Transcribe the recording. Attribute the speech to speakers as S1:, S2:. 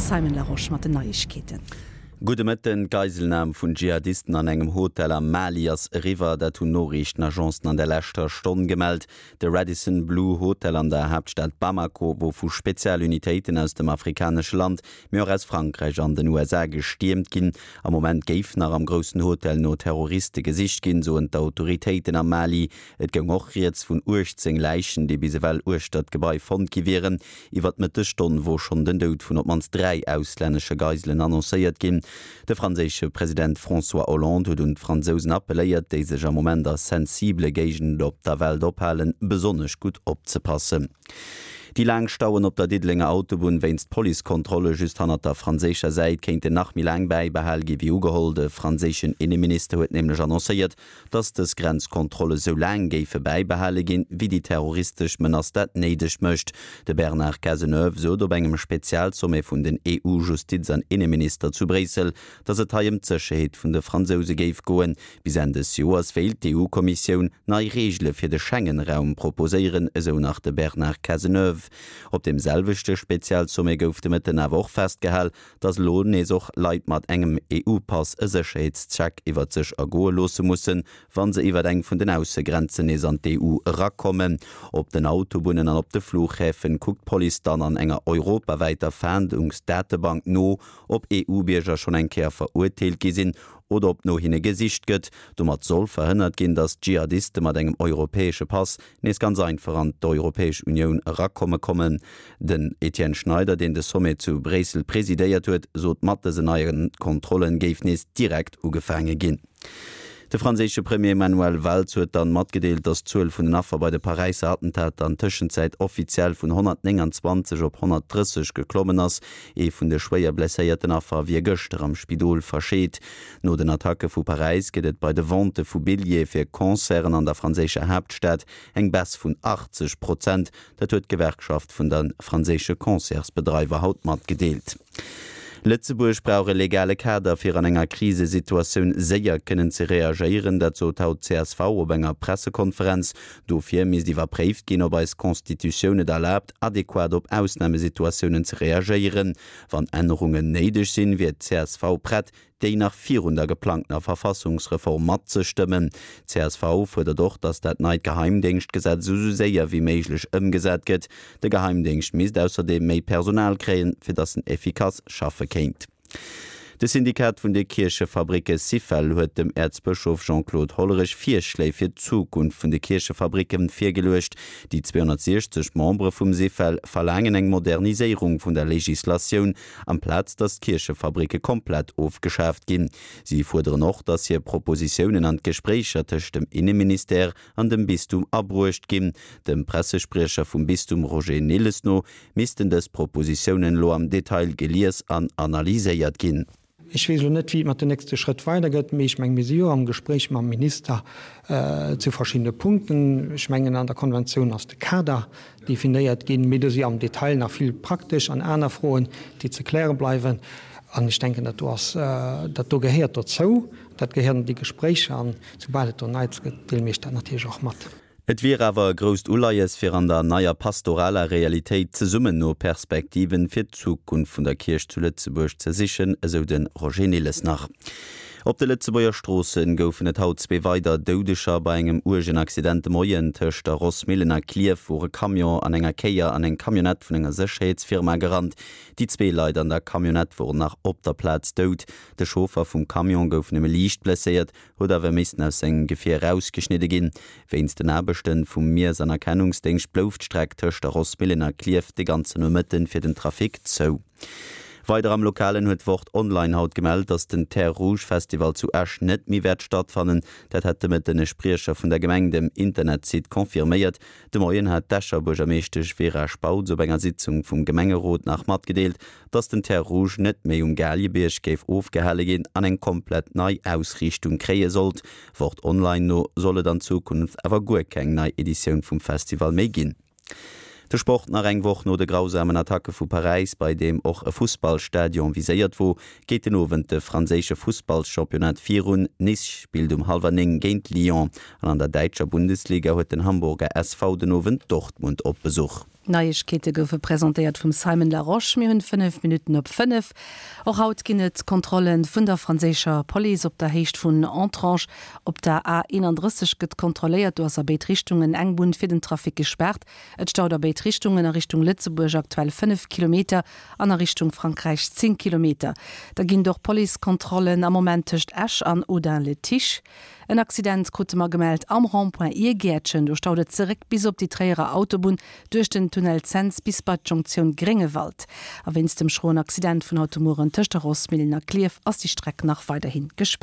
S1: De Simon Larosche mat den Neiegkeeten.
S2: Gudde Mëtten. D'Geiselnam vun Dschihadisten an engem Hotel am Mali ass eriwwer. Dat hunn Noriichtenagencen an der leschter Stonn gemellt. De Radisson Blu Hotel an der Haaptstad Bamako wor vu Spezialunitéiten aus dem afrikanesche Land, mee och aus Frankräich an den USA gestiermt ginn. Am Moment géif nach am groussen Hotel no Terroriste gesicht ginn, soen d'Autoritéiten am Mali. Et goung och rieds vun 18 Läichen, déi bis ewell uechter d'Gebai fonnt gi wieren. Iwwer d'Mëttesstonn wor schonn den Doud vun op d'mannst 3 auslännesche Geiselen annoncéiert ginn. De franséische President François Hollande huet un d'Fransousen appelléiert, déi sech am Moment a sensibele Géigenden op der Welt ophalen, besonnesch gutt opzepassen. Déi laang Stauen op der Diddelenger Autobunn wéinst Policekontrolle just hannert der franséischer Säit kéinten nach méi laang bäibehal gi wéi ugeholl. De franséischen Inneminister huet nämlech annoncéiert, dass dës Grenzkontrolle sou laang géife bäibehale ginn, wéi déi terroristesch Menace dat néideg mécht. De Bernard Cazeneuve sot op engem Spezialsommet vun den EU-Justiz an Inneminister zu Bréissel, dass et hei ëm d'Sécherheet vun de Fransouse géif goen. Bis Enn des Joers wéilt d'EU-Kommissioun nei Reegele fir de Schengen-Raum proposéieren, esou nach de Bernard Cazeneuve. Op deem selwechte Spezialsommet gouf de Mëtten awer och festgehal, dass elo nees och Leit mat engem EU-Pass e Sécherheetscheck iwwert sech ergoe loosse mussen, wa se iwwert eng vun den Aussegrenzen nees an d'EU erakommen. Op den Autobunnen an op de Flughäfen kuckt d'Police dann an enger europawäiter Fahndungsdatebank no, ob EU-Bierger schonn eng Kéier verurteelt gi sinn oder ob no hinne gesicht gëtt. Domat soll verhënnert ginn, dass Dschihadiste mat engem europäesche Pass nees ganz einfach an d'Europäesch Unioun erakomme kommen. Den Etienne Schneider, deen de Sommet zu Bréissel presidéiert huet, sot, mat dësen neie Kontrollen géif nees direkt ugefaange ginn. De franséische Premier Manuel Valls huet dann matgedeelt, datt d'Zuel vun den Affer bei de Paräisser Attentater an Tëschenzäit offiziell vun 129 op 130 geklommen ass. Ee vun de schwéier blesséierten Affer wier gëschter am Spidol verscheet. No den Attacke vu Paräis gëtt et bei de Vente vu Billjeeë fir Concerten an der franséischer Haaptstad eng Baisse vun 80 Prozent. Dat huet d'Gewerkschaft vun de franséische Concertsbedreiwer haut matgedeelt. Lëtzebuerg brauch e legale Kader, fir an enger Krisesituatioun séier kënnen ze reagéieren. Dat sot haut d'CSV op enger Pressekonferenz. Dofir misst iwwerpréift ginn, ob eis Constitutioun et erlaabt, adequat op Ausnamesituatiounen ze reagéieren. Wann Ännerungen néideg sinn, wier d'CSV prett, déi nach virun der geplangtener Verfassungsreform matzestëmmen. Csv fuerdert och, datt dat neit Geheimdéngschtgesetz esou séier wéi méiglech ëmgesat gëtt. De Geheimdéngscht misst ausserdeem méi Personal kréien, fir datt en effikass schaffe kéint. De Syndikat vun de Kierchefabricke Syfel huet dem Äerzbëschof Jean-Claude Hollerich Virschléi fir d'Zukunft vun de Kierchefabricke virgeluecht. Déi 260 Membere vum Syfel verlaangen eng Moderniséierung vun der Legislatioun, amplaz datt d'Kierchefabricke komplett ofgeschaaft ginn. Si fuerderen och, datt hir Propositiounen an d'Gespréicher tëscht dem Inneministère an dem Bistum abruecht ginn. Dem Pressespriecher vum Bistum Roger Nilles no missten dës Propositiounen elo am Detail gelies an analyséiert ginn.
S3: Ech weess elo net, wéi et mat den nächste Schrëtt weidergëtt, mee ech mengen, mir si jo am Gespréich mam Minister zu verschiddene Punkten. Ech mengen, an der Konventioun ass de Kader definéiert ginn, mee do si am Detail nach vill praktesch an aner Froen, déi ze kläre bleiwen. An ech denken, dat do ass, dat do gehéiert dozou, dat gehéiert an déi Gespréicher. An soubal et do Neits gëtt, deele mir Iech dat natierlech och mat.
S2: Et wier awer e grousst Uleies, fir an der neier pastoraler Realitéit zesummen no Perspektiven fir d'Zukunft vun der Kierch zu Lëtzebuerg ze sichen, esou de Roger Nilles nach. Op de Lëtzebuerger Stroosse goufen et haut zwee weider Doudeger bei engem uergen Accident de Moien. Tëscht der Rossmillen a Klierf wor e Camion an enger Kéier an eng Camionnette vun enger Sécherheetsfirma gerannt. Déi zwee Leit an der Camionnette woren nach op der Plaz dout. De Chauffer vum Camion gouf nëmme liicht blesséiert. huet awer missten aus sengem Gefier erausgeschnidde ginn. Wéinst den Aarbechte vum Miess an Erkennungsdéngscht blouf d'Streck tëscht der Rossmillen a Klierf de ganzen Nomëtten fir den Trafic zou. Weider am Lokalen huet Wort Online haut gemellt, datt den Terres Rouges Festival zu Esch net méi wäert stattfannen. Dat hat de Mëtten e Spriecher vun der Gemeng dem Internetsite confirméiert. De Moien hat d'Escher Buergermeeschtesch Vera Spautz op enger Sitzung vum Gemengerot nach matgedeelt, dass den Terres Rouges net méi um Galiebierg géif ofgehale ginn an eng komplett nei Ausriichtung kréie sollt. Wort Online no soll et an Zukunft awer guer keng nei Editioun vum Festival méi ginn. De Sport, Nach eng Woch no de grausamen Attacke vu Paräis, bei deem och e Fussballstadion viséiert wor, geet den Owend de franséische Fussballschampionnat virun. Nice spillt um hallwer 9 géint Lyon an an der däitscher Bundesliga huet den Hamburger SV den Owend Dortmund op Besuch.
S1: D'Neiegkeete goufe presentéiert vum Simon Larosche. Mir hunn 5 Minutten op 5. Och haut ginn et Kontrolle vun der franséischer Police op der Héicht vun Entrange. Op der A 31 gëtt kontrolléiert. Do ass a béid Richtungen eng Bunn fir den Trafic gespaart. Et staut a béid Richtungen, a Richtung Lëtzebuerg aktuell 5 Kilometer an a Richtung Frankräich 10 Kilometer. Da ginn et och Policekontrollen am Moment tëscht Esch an Audun-le-Tiche. En Accident krute mer gemellt am Rond-point Iergäertchen. Do staut et zeréck bis op déi Tréierer Autobunn duerch den Tunnel Cents bis bei d'Jonktioun Gréngewald. A wéinst dem schroen Accident vun haut de Mueren tëscht der Rossmillen a Klierf ass déi Streck nach weiderhi gespaart.